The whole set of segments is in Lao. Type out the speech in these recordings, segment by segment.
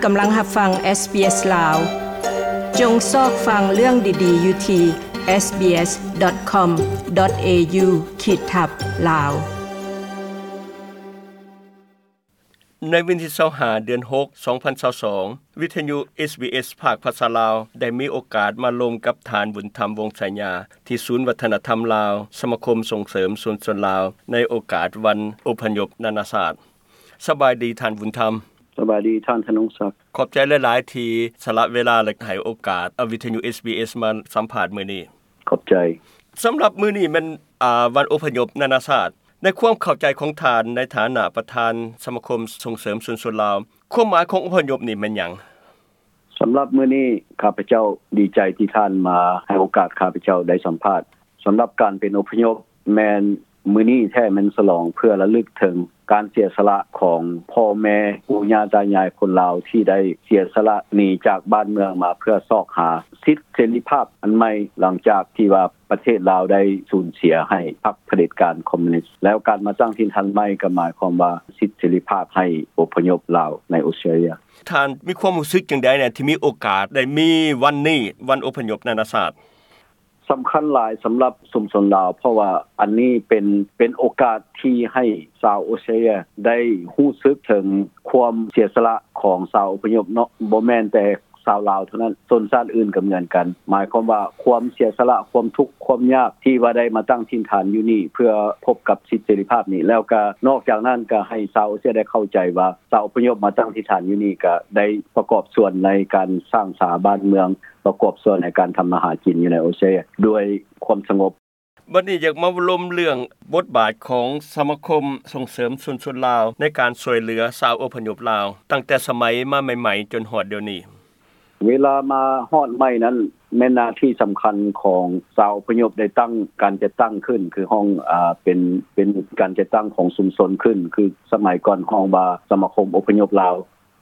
ກຳລັງຮັບຟັງ SBS ລາວ. ຈົ່ງຊອກຟັງເລື່ອງດີໆຢູ່ທີ່ SBS.com.au ຂີດທັບ ລາວ. ໃນວັນທີຊາວຫ້າ ເດືອນຫົກ ສອງພັນຊາວສອງ ວິທະຍຸ SBS ພາກພາສາລາວ ໄດ້ມີໂອກາດມາລົມກັບທ່ານ ບຸນທຳ ວົງໄຊຍາ ທີ່ສູນວັດທະນະທຳລາວ ສະມາຄົມສົ່ງເສີມຊຸມຊົນລາວ ໃນໂອກາດວັນອົບພະຍົບນານາຊາດ. ສະບາຍດີທ່ານບຸນທຳ. ສະບາຍດີທ່ານທະນົງສັກ. ຂອບໃຈຫຼາຍໆ ທີ່ສະຫຼະເວລາ ແລະ ໃຫ້ໂອກາດ ອາ ວິທະຍຸ SBS ມາສຳພາດມື້ນີ້. ຂອບໃຈ. ສຳລັບມື້ນີ້ແມ່ນ ອາ ວັນອົບພະຍົບນານາຊາດ. ໃນຄວາມເຂົ້າໃຈຂອງທ່ານ ໃນຖານະປະທານສະມາຄົມສົ່ງເສີມຊຸມຊົນລາວ, ຄວາມໝາຍຂອງອົບພະຍົບນີ້ແມ່ນຫຍັງ? ສຳລັບມື້ນີ້ ຂ້າພະເຈົ້າດີໃຈທີ່ທ່ານມາ ໃຫ້ໂອກາດຂ້າພະເຈົ້າໄດ້ສຳພາດ. ສຳລັບການເປັນອົບພະຍົບ ແມ່ນມື້ນີ້ແທ້ແມ່ນສະຫຼອງເພື່ອລະລຶກເຖິງການເສຍສະຫຼະຂອງພໍ່ແມ່ປູ່ຍ່າຕາຍາຍຄົນລາວ ທີ່ໄດ້ເສຍສະຫຼະໜີຈາກບ້ານເມືອງມາເພື່ອຊອກຫາສິດເສລີພາບອັນໃໝ່ ຫຼັງຈາກທີ່ວ່າປະເທດລາວໄດ້ສູນເສຍໃຫ້ພັກຜະເດັດການຄອມມູນິດ. ແລ້ວການມາຕັ້ງຖິ່ນຖານໃໝ່ກໍໝາຍຄວາມວ່າສິດເສລີພາບໃຫ້ອົບພະຍົບລາວໃນອົດສະຕຣາເລຍ. ທ່ານມີຄວາມຮູ້ສຶກຈັ່ງໃດແດ່ ທີ່ມີໂອກາດໄດ້ມີວັນນີ້ ວັນອົບພະຍົບນານາຊາດ? ສຳຄັນຫຼາຍສຳລັບຊຸມຊົນລາວ ເພາະວ່າອັນນີ້ເປັນ ເປັນໂອກາດທີ່ໃຫ້ຊາວອົດສະຕຣາເລຍໄດ້ຮູ້ສຶກເຖິງຄວາມເສຍສະຫຼະຂອງຊາວອົບພະຍົບເນາະ, ບໍ່ແມ່ນແຕ່ຊາວລາວເທົ່ານັ້ນ, ຊົນຊາດອື່ນກໍເໝືອນກັນ. ໝາຍຄວາມວ່າຄວາມເສຍສະຫຼະ, ຄວາມທຸກ, ຄວາມຍາກທີ່ວ່າໄດ້ມາຕັ້ງຖິ່ນຖານຢູ່ນີ້ ເພື່ອພົບກັບສິດເສລີພາບນີ້. ແລ້ວກໍນອກຈາກນັ້ນກໍໃຫ້ຊາວອົດສະຕຣາເລຍໄດ້ເຂົ້າໃຈວ່າ ຊາວອົບພະຍົບມາຕັ້ງຖິ່ນຖານຢູ່ນີ້ ກໍໄດ້ປະກອບສ່ວນໃນການສ້າງສາບ້ານເມືອງ, ປະກອບສ່ວນໃນການທຳມາຫາກິນຢູ່ໃນອົດສະຕຣາເລຍດ້ວຍຄວາມສະຫງົບ. ບັດນີ້ຢາກມາລົມເລື່ອງບົດບາດຂອງສະມາຄົມສົ່ງເສີມຊຸມຊົນລາວ ໃນການຊ່ວຍເຫຼືອຊາວອົບພະຍົບລາວ ຕັ້ງແຕ່ສະໄໝມາໃໝ່ໆ ຈົນຮອດດຽວນີ້. ເວລາມາຮອດໃໝ່ນັ້ນ ແມ່ນໜ້າທີ່ສຳຄັນຂອງຊາວອົບພະຍົບໄດ້ຕັ້ງ ການຈັດຕັ້ງຂຶ້ນ ຄືຫ້ອງ ອາ ເປັນ ເປັນການຈັດຕັ້ງຂອງຊຸມຊົນຂຶ້ນ ຄືສະໄໝກ່ອນຮ້ອງວ່າສະມາຄົມອົບພະຍົບລາວ.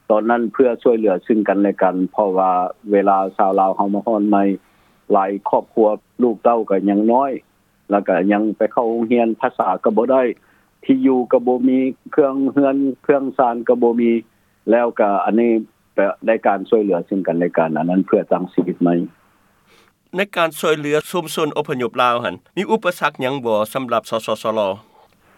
ຕອນນັ້ນເພື່ອຊ່ວຍເຫຼືອຊຶ່ງກັນແລະກັນ ເພາະວ່າເວລາຊາວລາວເຮົາມາຮອດໃໝ່ ຫຼາຍຄອບຄົວລູກເຕົ້າກໍຍັງນ້ອຍ ແລ້ວກໍຍັງໄປເຂົ້າໂຮງຮຽນ, ພາສາກໍບໍ່ໄດ້, ທີ່ຢູ່ກໍບໍ່ມີ, ເຄື່ອງເຮືອນເຄື່ອງຊານກໍບໍ່ມີ, ແລ້ວກໍອັນນີ້ກໍໄດ້ການຊ່ວຍເຫຼືອຊຶ່ງກັນແລະກັນ, ອັນນັ້ນເພື່ອຕັ້ງຊີວິດໃໝ່. ໃນການຊ່ວຍເຫຼືອຊຸມຊົນອົບພະຍົບລາວຫັ້ນ ມີອຸປະສັກຫຍັງບໍ່ສຳລັບ ສສຊລ?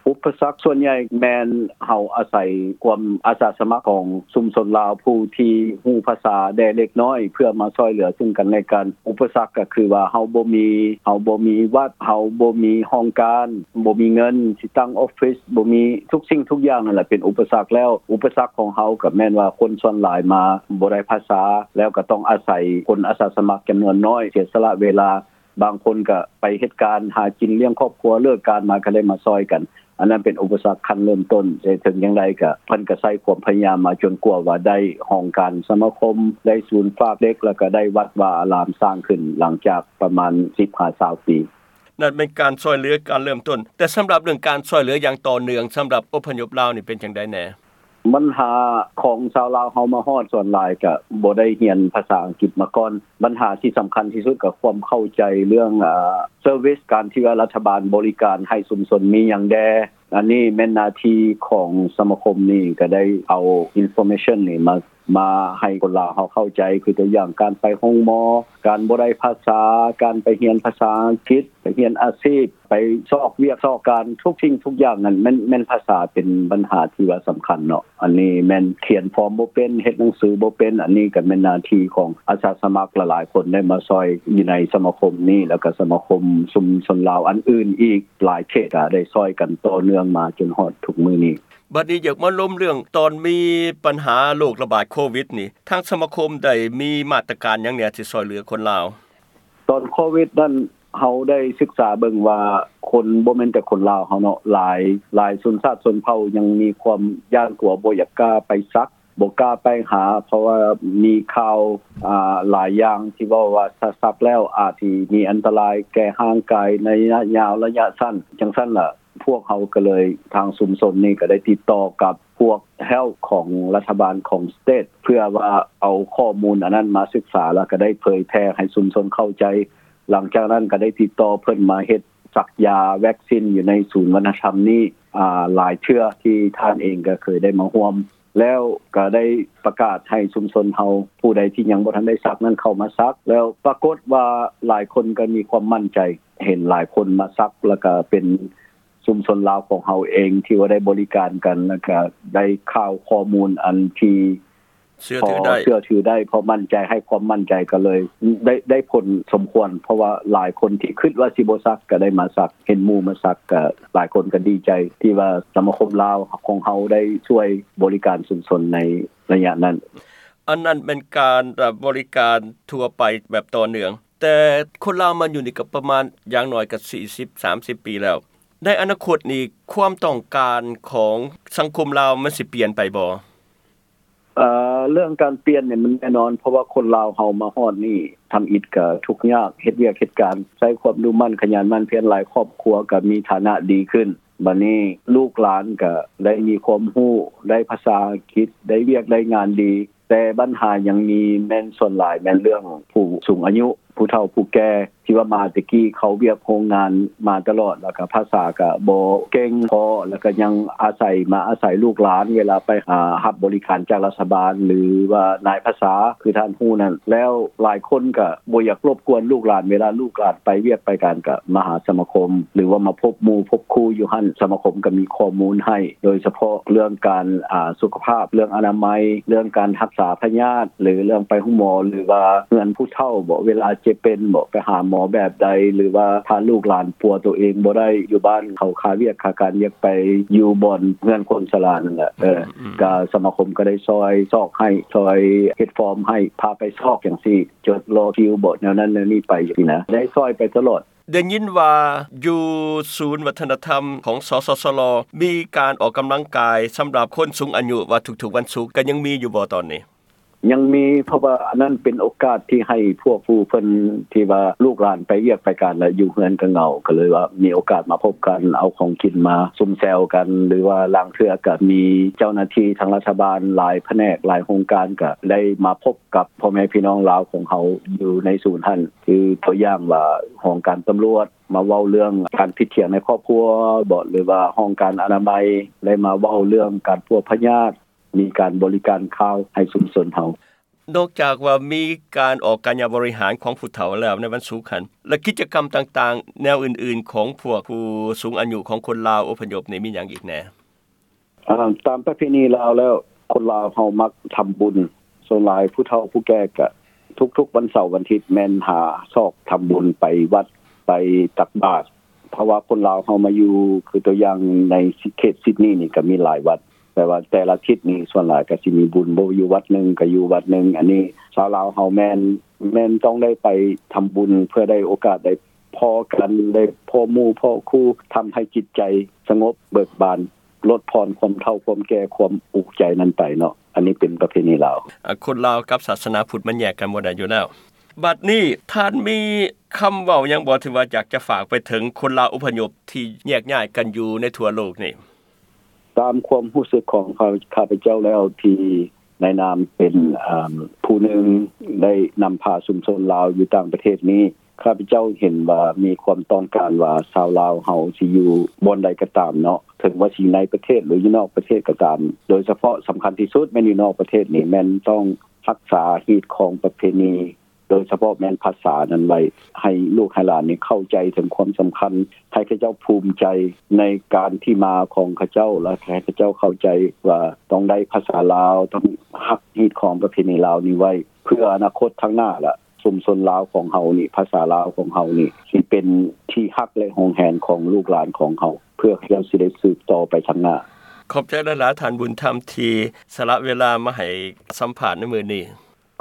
ອຸປະສັກສ່ວນໃຫຍ່ແມ່ນເຮົາອາໄສຄວາມອາສາສະໝັກຂອງຊຸມຊົນລາວ ຜູ້ທີ່ຮູ້ພາສາແດ່ເລັກນ້ອຍ ເພື່ອມາຊ່ວຍເຫຼືອຊຶ່ງກັນແລະກັນ. ອຸປະສັກກໍຄືວ່າເຮົາບໍ່ມີ ເຮົາບໍ່ມີວັດ, ເຮົາບໍ່ມີຫ້ອງການ, ບໍ່ມີເງິນຊິຕັ້ງອອຟຟິດ, ບໍ່ມີ ທຸກສິ່ງທຸກຢ່າງນັ້ນແຫຼະເປັນອຸປະສັກແລ້ວ. ອຸປະສັກຂອງເຮົາກໍແມ່ນວ່າຄົນສ່ວນຫຼາຍມາບໍ່ໄດ້ພາສາ ແລ້ວກໍຕ້ອງອາໄສຄົນອາສາສະໝັກຈຳນວນນ້ອຍ ເສຍສະຫຼະເວລາ. ບາງຄົນກໍໄປເຮັດການຫາກິນລ້ຽງຄອບຄົວ, ເລີກການມາກໍໄດ້ມາຊ່ອຍກັນ. ອັນນັ້ນເປັນອຸປະສັກຂັ້ນເລີ່ມຕົ້ນ, ແຕ່ເຖິງຢ່າງໃດກໍເພິ່ນກໍໃຊ້ຄວາມພະຍາຍາມມາຈົນກວ່າວ່າໄດ້ຫ້ອງການສະມາຄົມ, ໄດ້ສູນຝາກເດັກ, ແລ້ວກໍໄດ້ວັດວາອາລາມສ້າງຂຶ້ນ ຫຼັງຈາກປະມານສິບຫາຊາວປີ. ນັ້ນເປັນການຊ່ວຍເຫຼືອການເລີ່ມຕົ້ນ, ແຕ່ສຳລັບເລື່ອງການຊ່ວຍເຫຼືອຢ່າງຕໍ່ເນື່ອງ ສຳລັບອົບພະຍົບລາວນີ້ເປັນຈັ່ງໃດແດ່? ບັນຫາຂອງຊາວລາວເຮົາມາຮອດສ່ວນຫຼາຍກະບໍ່ໄດ້ຮຽນພາສາອັງກິດມາກ່ອນ. ບັນຫາທີ່ສຳຄັນທີ່ສຸດກໍຄວາມເຂົ້າໃຈເລື່ອງ ອາ ເຊີວິສ, ການທີ່ວ່າລັດຖະບານບໍລິການໃຫ້ຊຸມຊົນມີຫຍັງແດ່. ອັນນີ້ແມ່ນໜ້າທີ່ຂອງສະມາຄົມນີ້ ກໍໄດ້ເອົາອິນຟໍເມຊັນນີ້ມາ ມາໃຫ້ຄົນລາວເຮົາເຂົ້າໃຈ, ຄືຕົວຢ່າງການໄປໂຮງໝໍ, ການບໍ່ໄດ້ພາສາ, ການໄປຮຽນພາສາອັງກິດ, ໄປຮຽນອາຊີບ, ໄປຊອກວຽກຊອກການ, ທຸກສິ່ງທຸກຢ່າງນັ້ນແມ່ນ ແມ່ນພາສາເປັນບັນຫາທີ່ວ່າສຳຄັນເນາະ. ອັນນີ້ແມ່ນຂຽນຟອມບໍ່ເປັນ, ເຮັດໜັງສືບໍ່ເປັນ, ອັນນີ້ກໍແມ່ນໜ້າທີ່ຂອງອາສາສະໝັກຫຼາຍໆຄົນໄດ້ມາຊ່ອຍຢູ່ໃນສະມາຄົມນີ້, ແລ້ວກໍສະມາຄົມຊຸມຊົນລາວອັນອື່ນອີກຫຼາຍເຂດກໍໄດ້ຊ່ອຍກັນຕໍ່ເນື່ອງມາຈົນຮອດທຸກມື້ນີ້. ບັດນີ້ຢາກມາລົມເລື່ອງຕອນມີບັນຫາໂລກລະບາດໂຄວິດນີ້, ທາງສະມາຄົມໄດ້ມີມາດຕະການຫຍັງແດ່ທີ່ຊ່ວຍເຫຼືອຄົນລາວ? ຕອນໂຄວິດນັ້ນ ເຮົາໄດ້ສຶກສາເບິ່ງວ່າຄົນ ບໍ່ແມ່ນແຕ່ຄົນລາວເຮົາເນາະ, ຫຼາຍ ຫຼາຍຊົນຊາດຊົນເຜົ່າຍັງມີຄວາມຢ້ານກົວ, ບໍ່ຢາກກ້າໄປສັກ, ບໍ່ກ້າໄປຫາ, ເພາະວ່າມີຂ່າວ ອາ ຫຼາຍຢ່າງທີ່ເວົ້າວ່າ ຖ້າສັກແລ້ວອາດຊິມີອັນຕະລາຍແກ່ຮ່າງກາຍໃນໄລຍະຍາວ, ໄລຍະສັ້ນ, ຈັ່ງຊັ້ນລະ ພວກເຮົາກໍເລີຍ ທາງຊຸມຊົນນີ້ກໍໄດ້ຕິດຕໍ່ກັບພວກ Health ຂອງລັດຖະບານຂອງ State ເພື່ອວ່າເອົາຂໍ້ມູນອັນນັ້ນມາສຶກສາ ແລ້ວກໍໄດ້ເຜີຍແຜ່ໃຫ້ຊຸມຊົນເຂົ້າໃຈ. ຫຼັງຈາກນັ້ນກໍໄດ້ຕິດຕໍ່ເພິ່ນມາເຮັດສັກຢາແວັກຊິນຢູ່ໃນສູນວັດທະນະທຳນີ້ ອາ ຫຼາຍເທື່ອ ທີ່ທ່ານເອງກໍເຄີຍໄດ້ມາຮ່ວມ. ແລ້ວກໍໄດ້ປະກາດໃຫ້ຊຸມຊົນເຮົາ ຜູ້ໃດທີ່ຍັງບໍ່ທັນໄດ້ສັກນັ້ນເຂົ້າມາສັກ ແລ້ວປາກົດວ່າຫຼາຍຄົນກໍມີຄວາມໝັ້ນໃຈ ເຫັນຫຼາຍຄົນມາສັກ ແລ້ວກໍເປັນຊຸມຊົນລາວຂອງເຮົາເອງທີ່ວ່າໄດ້ບໍລິການກັນ ແລ້ວກໍໄດ້ຂ່າວຂໍ້ມູນອັນທີ່ ເຊື່ອຖືໄດ້ ພໍເຊື່ອຖືໄດ້ ພໍໝັ້ນໃຈ ໃຫ້ຄວາມໝັ້ນໃຈກັນເລີຍ ໄດ້ ໄດ້ຜົນສົມຄວນ ເພາະວ່າຫຼາຍຄົນທີ່ຄິດວ່າຊິບໍ່ສັກກໍໄດ້ມາສັກ ເຫັນໝູ່ມາສັກກໍຫຼາຍຄົນກໍດີໃຈ ທີ່ວ່າສະມາຄົມລາວຂອງເຮົາໄດ້ຊ່ວຍບໍລິການຊຸມຊົນໃນໄລຍະນັ້ນ. ອັນນັ້ນແມ່ນການ ເອີ ບໍລິການທົ່ວໄປແບບຕໍ່ເນື່ອງ ແຕ່ຄົນລາວມາຢູ່ນີ້ກໍປະມານຢ່າງໜ້ອຍກໍສີ່ສິບ ສາມສິບປີແລ້ວ ໃນອະນາຄົດນີ້ຄວາມຕ້ອງການຂອງສັງຄົມລາວມັນຊິປ່ຽນໄປບໍ່? ເອີ ເລື່ອງການປ່ຽນນີ້ມັນແນ່ນອນ ເພາະວ່າຄົນລາວເຮົາມາຮອດນີ້ ທຳອິດກໍທຸກຍາກ ເຮັດວຽກເຮັດການ ໃຊ້ຄວາມດຸໝັ່ນຂະຫຍັນໝັ່ນພຽນ ຫຼາຍຄອບຄົວກໍມີຖານະດີຂຶ້ນ ບາດນີ້ລູກຫຼານກໍໄດ້ມີຄວາມຮູ້ ໄດ້ພາສາອັງກິດ ໄດ້ວຽກໄດ້ງານດີ ແຕ່ບັນຫາຍັງມີແມ່ນສ່ວນຫຼາຍແມ່ນເລື່ອງຜູ້ສູງອາຍຸ ຜູ້ເຖົ້າຜູ້ແກ່ ທີ່ວ່າມາແຕ່ກີ້ເຂົ້າວຽກໂຮງງານມາຕະຫຼອດ ແລ້ວກໍພາສາກໍບໍ່ເກັ່ງພໍ ແລ້ວກໍຍັງອາໄສ ມາອາໄສລູກຫຼານ ເວລາໄປຫາຮັບບໍລິການຈາກລັດຖະບານ ຫຼືວ່ານາຍພາສາ ຄືທ່ານຮູ້ນັ້ນ ແລ້ວຫຼາຍຄົນກໍບໍ່ຢາກລົບກວນລູກຫຼານ ເວລາລູກຫຼານໄປວຽກໄປການ ກໍມາຫາສະມາຄົມ ຫຼືວ່າມາພົບໝູ່ພົບຄູ່ຢູ່ຫັ້ນ ສະມາຄົມກໍມີຂໍ້ມູນໃຫ້ ໂດຍສະເພາະເລື່ອງການ ອາ ສຸຂະພາບ ເລື່ອງອະນາໄມ ເລື່ອງການຮັກສາພະຍາດ ຫຼືເລື່ອງໄປໂຮງໝໍ ຫຼືວ່າເຮືອນຜູ້ເຖົ້າບໍ ເວລາເຈັບເປັນບໍ ໄປຫາໝໍແບບໃດ ຫຼືວ່າຖ້າລູກຫຼານປົວໂຕເອງບໍ່ໄດ້ຢູ່ບ້ານ ເຂົາຄາວຽກຄາການ ຢາກໄປຢູ່ບ່ອນເຮືອນຄົນຊະລານັ້ນແຫຼະ ເອີ ອືມ ກໍສະມາຄົມກໍໄດ້ຊ່ອຍຊອກໃຫ້ ຊ່ອຍເຮັດຟອມໃຫ້ ພາໄປຊອກຈັ່ງຊີ້ ຈົດລໍຄິວບໍ ແນວນັ້ນແນວນີ້ໄປຊີ້ນະ ໄດ້ຊ່ອຍໄປຕະຫຼອດ. ໄດ້ຍິນວ່າຢູ່ສູນວັດທະນະທຳຂອງ ສສສລ ມີການອອກກຳລັງກາຍສຳລັບຄົນສູງອາຍຸວ່າທຸກໆວັນສຸກ ກໍຍັງມີຢູ່ບໍ່ຕອນນີ້? ຍັງມີ ເພາະວ່າອັນນັ້ນເປັນໂອກາດທີ່ໃຫ້ພວກຜູ້ເພິ່ນທີ່ວ່າລູກຫຼານໄປວຽກໄປການ ແລ້ວຢູ່ເຮືອນກໍເຫງົາ ກໍເລີຍວ່າມີໂອກາດມາພົບກັນ ເອົາຂອງກິນມາຊຸມແຊວກັນ ຫຼືວ່າລາງເທື່ອກໍມີເຈົ້າໜ້າທີ່ທາງລັດຖະບານ ຫຼາຍພະແນກ ຫຼາຍໂຮງການ ກໍໄດ້ມາພົບກັບພໍ່ແມ່ພີ່ນ້ອງລາວຂອງເຮົາຢູ່ໃນສູນຫັ້ນ ຄືຕົວຢ່າງວ່າຫ້ອງການຕຳຫຼວດ ມາເວົ້າເລື່ອງການຜິດຖຽງໃນຄອບຄົວບໍ ຫຼືວ່າຫ້ອງການອະນາໄມ ໄດ້ມາເວົ້າເລື່ອງການປົວພະຍາດ ມີການບໍລິການຂ່າວໃຫ້ຊຸມຊົນເຮົາ. ນອກຈາກວ່າມີການອອກກາຍະບໍລິຫານຂອງຜູ້ເຖົ້າແລ້ວໃນວັນສຸກຫັ້ນ ແລະ ກິດຈະກຳຕ່າງໆແນວອື່ນໆຂອງພວກຜູ້ສູງອາຍຸຂອງຄົນລາວອົບພະຍົບນີ້ມີຫຍັງອີກແດ່? ອາ ຕາມປະເພນີລາວແລ້ວ ຄົນລາວເຮົາມັກທຳບຸນ ສ່ວນຫຼາຍຜູ້ເຖົ້າຜູ້ແກ່ກະທຸກໆວັນເສົາວັນທິດແມ່ນຫາຊອກທຳບຸນ ໄປວັດໄປຕັກບາດ ເພາະວ່າຄົນລາວເຮົາມາຢູ່ ຄືຕົວຢ່າງໃນເຂດຊິດນີນີ້ກະມີຫຼາຍວັດ ແຕ່ວ່າແຕ່ລະທິດນີ້ສ່ວນຫຼາຍກະຊິມີບຸນ ບໍ່ຢູ່ວັດໜຶ່ງກະຢູ່ວັດໜຶ່ງ ອັນນີ້ຊາວລາວເຮົາແມ່ນ ແມ່ນຕ້ອງໄດ້ໄປທຳບຸນ ເພື່ອໄດ້ໂອກາດໄດ້ພໍ້ກັນ ໄດ້ພໍ້ໝູ່ພໍ້ຄູ່ ທຳໃຫ້ຈິດໃຈສະຫງົບເບີກບານ ລົດຜ່ອນຄວາມເຖົ້າຄວາມແກ່ຄວາມອຸກໃຈນັ້ນໄປເນາະ ອັນນີ້ເປັນປະເພນີລາວ. ອາ ຄົນລາວກັບສາສະໜາພຸດມັນແຍກກັນບໍ່ໄດ້ຢູ່ແລ້ວ. ບັດນີ້ທ່ານມີຄຳເວົ້າຫຍັງບໍ່ ທີ່ວ່າຢາກຈະຝາກໄປເຖິງຄົນລາວອົບພະຍົບທີ່ແຍກຍ້າຍກັນຢູ່ໃນທົ່ວໂລກນີ້? ຕາມຄວາມຮູ້ສຶກຂອງຂ້າພະເຈົ້າແລ້ວ ທີ່ໃນນາມເປັນ ອາ ຜູ້ໜຶ່ງໄດ້ນຳພາຊຸມຊົນລາວຢູ່ຕ່າງປະເທດນີ້ ຂ້າພະເຈົ້າເຫັນວ່າມີຄວາມຕ້ອງການວ່າຊາວລາວເຮົາຊິຢູ່ບ່ອນໃດກໍຕາມເນາະ ເຖິງວ່າຊິໃນປະເທດ ຫຼືຢູ່ນອກປະເທດກໍຕາມ ໂດຍສະເພາະສຳຄັນທີ່ສຸດແມ່ນຢູ່ນອກປະເທດນີ້ ແມ່ນຕ້ອງຮັກສາຮີດຄອງປະເພນີ ໂດຍສະເພາະແມ່ນພາສານັ້ນໄວ້ ໃຫ້ລູກໃຫ້ຫຼານນີ້ເຂົ້າໃຈເຖິງຄວາມສຳຄັນ ໃຫ້ເຂົາເຈົ້າພູມໃຈໃນການທີ່ມາຂອງເຂົາເຈົ້າ ແລະ ໃຫ້ເຂົາເຈົ້າເຂົ້າໃຈວ່າຕ້ອງໄດ້ພາສາລາວ ຕ້ອງຮັກຮີດຄອງປະເພນີລາວນີ້ໄວ້ ເພື່ອອະນາຄົດທາງໜ້າລະ ຊຸມຊົນລາວຂອງເຮົານີ້ ພາສາລາວຂອງເຮົານີ້ ຊິເປັນທີ່ຮັກ ແລະ ຫວງແຫນຂອງລູກຫຼານຂອງເຮົາ ເພື່ອເຂົາເຈົ້າຊິໄດ້ສືບຕໍ່ໄປທາງໜ້າ. ຂອບໃຈຫຼາຍໆ ທ່ານບຸນທຳ ທີ່ສະຫຼະເວລາມາໃຫ້ສຳພາດໃນມື້ນີ້.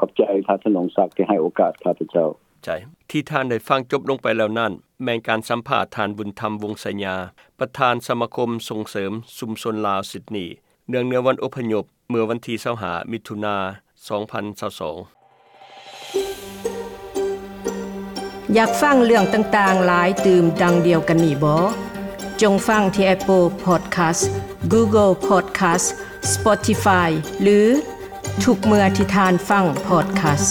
ຂອບໃຈທ່ານ ທະນົງສັກ ທີ່ໃຫ້ໂອກາດຂ້າພະເຈົ້າ. ທີ່ທ່ານໄດ້ຟັງຈົບລົງໄປແລ້ວນັ້ນ ແມ່ນການສຳພາດທ່ານ ບຸນທຳ ວົງໄຊຍາ ປະທານສະມາຄົມສົ່ງເສີມຊຸມຊົນລາວຊິດນີ ເນື່ອງໃນວັນອົບພະຍົບ ເມື່ອວັນທີຊາວຫ້າ ມິຖຸນາ ສອງພັນຊາວສອງ. ຢາກຟັງເລື່ອງຕ່າງໆຫຼາຍຕື່ມດັ່ງດຽວກັນນີ້ບໍ? ຈົ່ງຟັງທີ່ Apple Podcast, Google Podcast, Spotify ຫຼື ທຸກເມື່ອທີ່ທ່ານຟັງ Podcast.